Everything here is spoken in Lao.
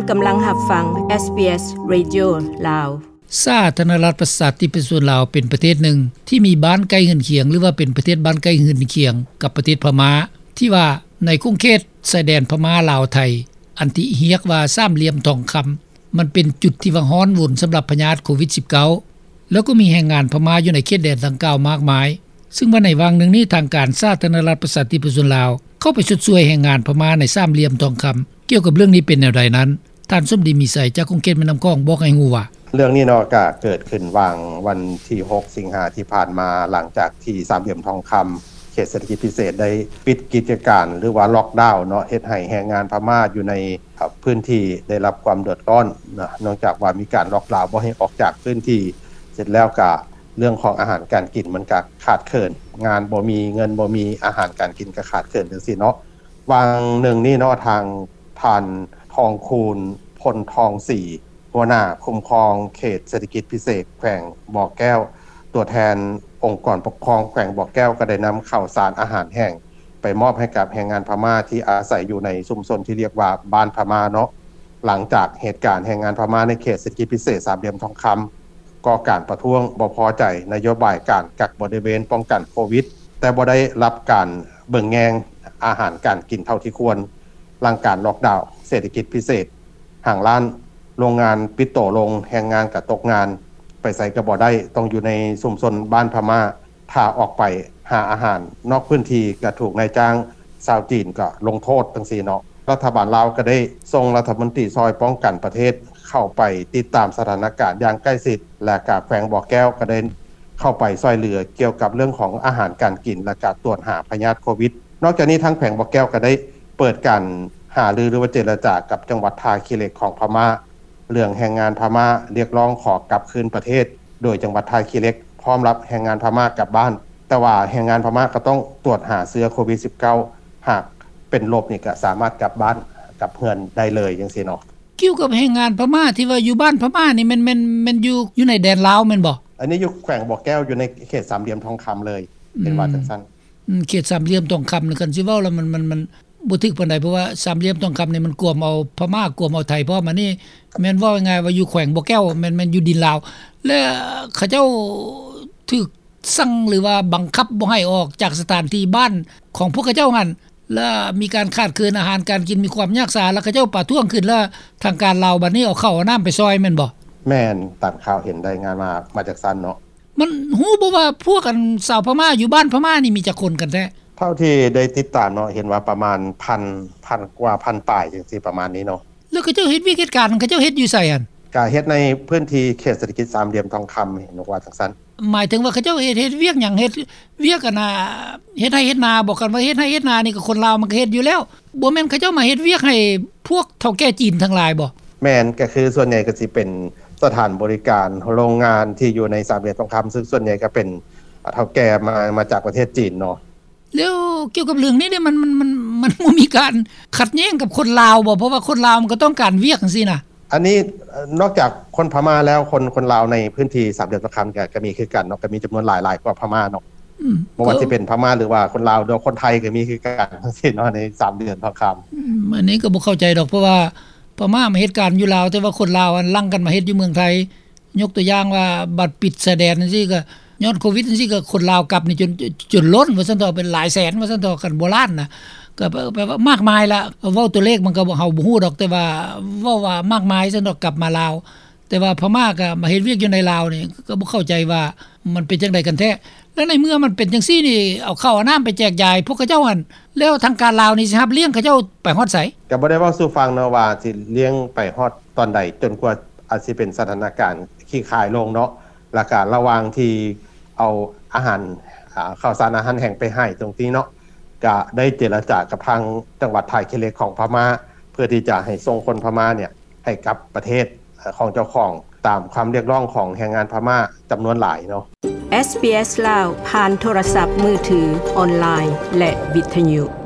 ກຳລັງຮັບຟັງ ເອສບີເອສ ເຣດິໂອ ລາວ. ສາທາລະນະລັດ ປະຊາທິປະໄຕ ປະຊາຊົນລາວ ເປັນປະເທດໜຶ່ງທີ່ມີບ້ານໃກ້ເຮືອນຄຽງ ຫຼືວ່າເປັນປະເທດບ້ານໃກ້ເຮືອນຄຽງກັບປະເທດພະມ້າ ທີ່ວ່າໃນຂົງເຂດຊາຍແດນພະມ້າ ລາວ ໄທ ອັນທີ່ຮຽກວ່າສາມຫຼ່ຽມທອງຄຳ ມັນເປັນຈຸດທີ່ວ່າຮ້ອນວົນສຳລັບພະຍາດໂຄວິດສິບເກົ້າ ແລ້ວກໍມີແຮງງານພະມ້າຢູ່ໃນເຂດແດນດັ່ງກ່າວມາກມາຍ. ຊຶ່ງວ່າໃນຫວ່າງໜຶ່ງນີ້ ທາງການສາທາລະນະລັດ ປະຊາທິປະໄຕ ປະຊາຊົນລາວ ເຂົ້າໄປຊົດຊ່ວຍແຮງງານພະມ້າໃນສາມຫຼ່ຽມທອງຄຳ. ກ່ຽວກັບເລື່ອງນີ້ເປັນແນວໃດນັ້ນ ທ່ານ ສົມດີ ມີໄຊ ຈາກຂົງເຂດແມ່ນ້ຳຂອງ ບອກໃຫ້ຮູ້ວ່າ ເລື່ອງນີ້ເນາະ ກະເກີດຂຶ້ນຫວ່າງວັນທີຫົກ ສິງຫາທີ່ຜ່ານມາ ຫຼັງຈາກທີ່ສາມຫຼ່ຽມທອງຄຳ ເຂດເສດຖະກິດພິເສດ ໄດ້ປິດກິດຈະການ ຫຼືວ່າລັອກດາວເນາະ ເຮັດໃຫ້ແຮງງານພະມ້າຢູ່ໃນ ເອີ ພື້ນທີ່ໄດ້ຮັບຄວາມເດືອດຮ້ອນເນາະ ເນື່ອງຈາກວ່າມີການລັອກດາວບໍ່ໃຫ້ອອກຈາກພື້ນທີ່ ເສັດແລ້ວກະເລື່ອງຂອງອາຫານການກິນມັນກະຂາດເຂີນ ງານບໍ່ມີ ເງິນບໍ່ມີ ອາຫານການກິນກະຂາດເຂີນຈັ່ງຊີ້ເນາະ. ຫວ່າງໜຶ່ງນີ້ເນາະ ທາງທ່ານ ທອງຄູນ ພົນທອງສີ ຫົວໜ້າຄຸ້ມຄອງເຂດເສດຖະກິດພິເສດແຂວງບໍ່ແກ້ວ ຕົວແທນອົງກອນປົກຄອງແຂວງບໍ່ແກ້ວ ກໍໄດ້ນຳເຂົ້າສານອາຫານແຫ້ງໄປມອບໃຫ້ກັບແຮງງານພະມ້າທີ່ອາໄສຢູ່ໃນຊຸມຊົນທີ່ຮຽກວ່າບ້ານພະມ້າເນາະ. ຫຼັງຈາກເຫດການແຮງງານພະມ້າໃນເຂດເສດຖະກິດພິເສດສາມຫຼ່ຽມທອງຄຳ ກໍ່ການປະທ້ວງບໍ່ພໍໃຈນະໂຍບາຍການກັກບໍລິເວນປ້ອງກັນໂຄວິດ ແຕ່ບໍ່ໄດ້ຮັບການເບິ່ງແຍງອາຫານການກິນເທົ່າທີ່ຄວນ. ຫຼັງການລັອກດາວເສດຖະກິດພິເສດ ຫ້າງຮ້ານໂຮງງານປິດໂຕລົງ ແຮງງານກະຕົກງານ ໄປໃສກະບໍ່ໄດ້ ຕ້ອງຢູ່ໃນຊຸມຊົນບ້ານພະມ້າ ຖ້າອອກໄປຫາອາຫານນອກພື້ນທີ່ກະຖືກນາຍຈ້າງຊາວຈີນກະລົງໂທດຈັ່ງຊີ້ເນາະ. ລັດຖະບານລາວກະໄດ້ສົ່ງລັດຖະມົນຕີຊ່ອຍປ້ອງກັນປະເທດເຂົ້າໄປຕິດຕາມສະຖານະການຢ່າງໃກ້ຊິດ ແລະກະແຂວງບໍ່ແກ້ວກະໄດ້ເຂົ້າໄປຊ່ວຍເຫຼືອກ່ຽວກັບເລື່ອງຂອງອາຫານການກິນ ແລະກະການກວດຫາພະຍາດໂຄວິດ. ນອກຈາກນີ້ທາງແຂວງບໍ່ແກ້ວກະໄດ້ເປີດການຫາລື ຫຼືວ່າເຈລະຈາກັບຈັງຫວັດທ່າຂີ້ເຫຼັກຂອງພະມ້າ ເລື່ອງແຮງງານພະມ້າຮຽກຮ້ອງຂໍກັບຄືນປະເທດ ໂດຍຈັງຫວັດທ່າຂີ້ເຫຼັກພ້ອມຮັບແຮງງານພະມ້າກັບບ້ານ ແຕ່ວ່າແຮງງານພະມ້າກໍຕ້ອງກວດຫາເຊື້ອໂຄວິດສິບເກົ້າ ຫາກເປັນລົບນີ້ກໍສາມາດກັບບ້ານກັບເຮືອນໄດ້ເລີຍຈັ່ງຊີ້ເນາະ. ກ່ຽວກັບແຮງງານພະມ້າທີ່ວ່າຢູ່ບ້ານພະມ້ານີ້ ແມ່ນ ແມ່ນ ແມ່ນຢູ່ ຢູ່ໃນແດນລາວແມ່ນບໍ່? ອັນນີ້ຢູ່ແຂວງບໍ່ແກ້ວ ຢູ່ໃນເຂດສາມຫຼ່ຽມທອງຄຳເລີຍ ເປັນວ່າຈັ່ງຊັ້ນ. ອືມ ເຂດສາມຫຼ່ຽມທອງຄຳນີ້ ຄັນຊິເວົ້າແລ້ວມັນ ມັນ ມັນບໍ່ຖືກປານໃດ ເພາະວ່າສາມຫຼ່ຽມທອງຄຳນີ້ມັນກວມເອົາພະມ້າ ກວມເອົາໄທພ້ອມ. ອັນນີ້ແມ່ນເວົ້າງ່າຍໆວ່າຢູ່ແຂວງບໍ່ແກ້ວ ແມ່ນ ແມ່ນຢູ່ດິນລາວ ແລະເຂົາເຈົ້າຖືກສັ່ງ ຫຼືວ່າບັງຄັບບໍ່ໃຫ້ອອກຈາກສະຖານທີ່ບ້ານຂອງພວກເຂົາເຈົ້າຫັ້ນ ແລະມີການຂາດເຂີນອາຫານການກິນ ມີຄວາມຍາກສາ ແລະເຂົາເຈົ້າປະທ້ວງຂຶ້ນ ແລະທາງການລາວບັດນີ້ເອົາເຂົ້າເອົານ້ຳໄປຊ່ອຍແມ່ນບໍ່? ແມ່ນ ຕາມຂ່າວເຫັນລາຍງານມາ ມາຈາກຊັ້ນເນາະ. ມັນຮູ້ບໍ່ວ່າພວກອັນຊາວພະມ້າຢູ່ບ້ານພະມ້ານີ້ມີຈັກຄົນກັນແທ້? ເທົ່າທີ່ໄດ້ຕິດຕາມເນາະ ເຫັນວ່າປະມານພັນ ພັນກວ່າ ພັນປາຍຈັ່ງຊີ້ ປະມານນີ້ເນາະ. ແລ້ວເຂົາເຈົ້າເຮັດວຽກເຮັດການ ເຂົາເຈົ້າເຮັດຢູ່ໃສຫັ້ນ? ກະເຮັດໃນພື້ນທີ່ເຂດເສດຖະກິດສາມຫຼ່ຽມທອງຄຳ ເຫັນວ່າຈັ່ງຊັ້ນ. ໝາຍເຖິງວ່າເຂົາເຈົ້າເຮັດ ເຮັດວຽກຫຍັງ? ເຮັດວຽກອັນນ່າ ເຮັດໄຮ່ເຮັດນາບໍ? ຄັນວ່າເຮັດໄຮ່ເຮັດນານີ້ກໍຄົນລາວມັນກໍເຮັດຢູ່ແລ້ວ ບໍ່ແມ່ນເຂົາເຈົ້າມາເຮັດວຽກໃຫ້ພວກເຖົ້າແກ່ຈີນທັງຫຼາຍບໍ? ແມ່ນ ກໍຄືສ່ວນໃຫຍ່ກໍຊິເປັນສະຖານບໍລິການ ໂຮງງານທີ່ຢູ່ໃນສາມຫຼ່ຽມທອງຄຳ ຊຶ່ງສ່ວນໃຫຍ່ກໍເປັນເຖົ້າແກ່ມາ ມາຈາກປະເທດຈີນເນາະ. ແລ້ວກ່ຽວກັບເລື່ອງນີ້ເດ ມັນ ມັນ ມັນ ມັນບໍ່ມີການຂັດແຍ້ງກັບຄົນລາວບໍ? ເພາະວ່າຄົນລາວມັນກໍຕ້ອງການວຽກຈັ່ງຊີ້ນະ. ອັນນີ້ນອກຈາກຄົນພະມ້າແລ້ວ ຄົນ ຄົນລາວໃນພື້ນທີ່ສາມຫຼ່ຽມທອງຄຳກໍ ກໍມີຄືກັນເນາະ ກໍມີຈຳນວນຫຼາຍ ຫຼາຍກວ່າພະມ້າເນາະ. ອືມ ບໍ່ວ່າຊິເປັນພະມ້າ ຫຼືວ່າຄົນລາວ ຫຼືວ່າຄົນໄທກໍມີຄືກັນທັງສິ້ນເນາະ ໃນສາມຫຼ່ຽມທອງຄຳ. ອືມ ອັນນີ້ກໍບໍ່ເຂົ້າໃຈດອກ ເພາະວ່າພະມ້າມາເຮັດການຢູ່ລາວ ແຕ່ວ່າຄົນລາວຫັ້ນຫຼັ່ງກັນມາເຮັດຢູ່ເມືອງໄທ. ຍົກຕົວຢ່າງວ່າ ບັດປິດຊາຍແດນຈັ່ງຊີ້ ກໍຍ້ອນໂຄວິດຈັ່ງຊີ້ ກໍຄົນລາວກັບນີ້ຈົນ ຈົນລົ້ນວ່າຊັ້ນເຖາະ ເປັນຫຼາຍແສນວ່າຊັ້ນເຖາະ ຄັນບໍ່ລ້ານນະ ກໍແປວ່າມາກມາຍລະ. ເວົ້າຕົວເລກມັນກໍ ເຮົາບໍ່ຮູ້ດອກ ແຕ່ວ່າເວົ້າວ່າມາກມາຍຊັ້ນເຖາະ ກັບມາລາວ. ແຕ່ວ່າພະມ້າກໍມາເຮັດວຽກຢູ່ໃນລາວນີ້ ກໍບໍ່ເຂົ້າໃຈວ່າມັນເປັນຈັ່ງໃດກັນແທ້. ແລ້ວໃນເມື່ອມັນເປັນຈັ່ງຊີ້ນີ້ ເອົາເຂົ້າເອົານ້ຳໄປແຈກຢາຍພວກເຂົາເຈົ້າຫັ້ນ ແລ້ວທາງການລາວນີ້ຊິຮັບລ້ຽງເຂົາເຈົ້າໄປຮອດໃສ? ກໍບໍ່ໄດ້ເວົ້າສູ່ຟັງເນາະວ່າຊິລ້ຽງໄປຮອດຕອນໃດ ຈົນກວ່າອາດຊິເປັນສະຖານະການຂີ້ຄາຍລົງເນາະ. ແລ້ວກະລະຫວ່າງທີ່ເອົາອາຫານ ອາ ເຂົ້າສານອາຫານແຫ້ງໄປໃຫ້ຕົງນີ້ເນາະ ກະໄດ້ເຈລະຈາກັບທາງຈັງຫວັດທ່າຂີ້ເຫຼັກຂອງພະມ້າ ເພື່ອທີ່ຈະໃຫ້ສົ່ງຄົນພະມ້າເນຍ ໃຫ້ກັບປະເທດຂອງເຈົ້າຂອງ ຕາມຄຳຮຽກຮ້ອງຂອງແຮງງານພະມ້າຈຳນວນຫຼາຍເນາະ. ເອສບີເອສ ລາວ ຜ່ານໂທລະສັບມືຖື, ອອນລາຍ ແລະ ວິທະຍຸ.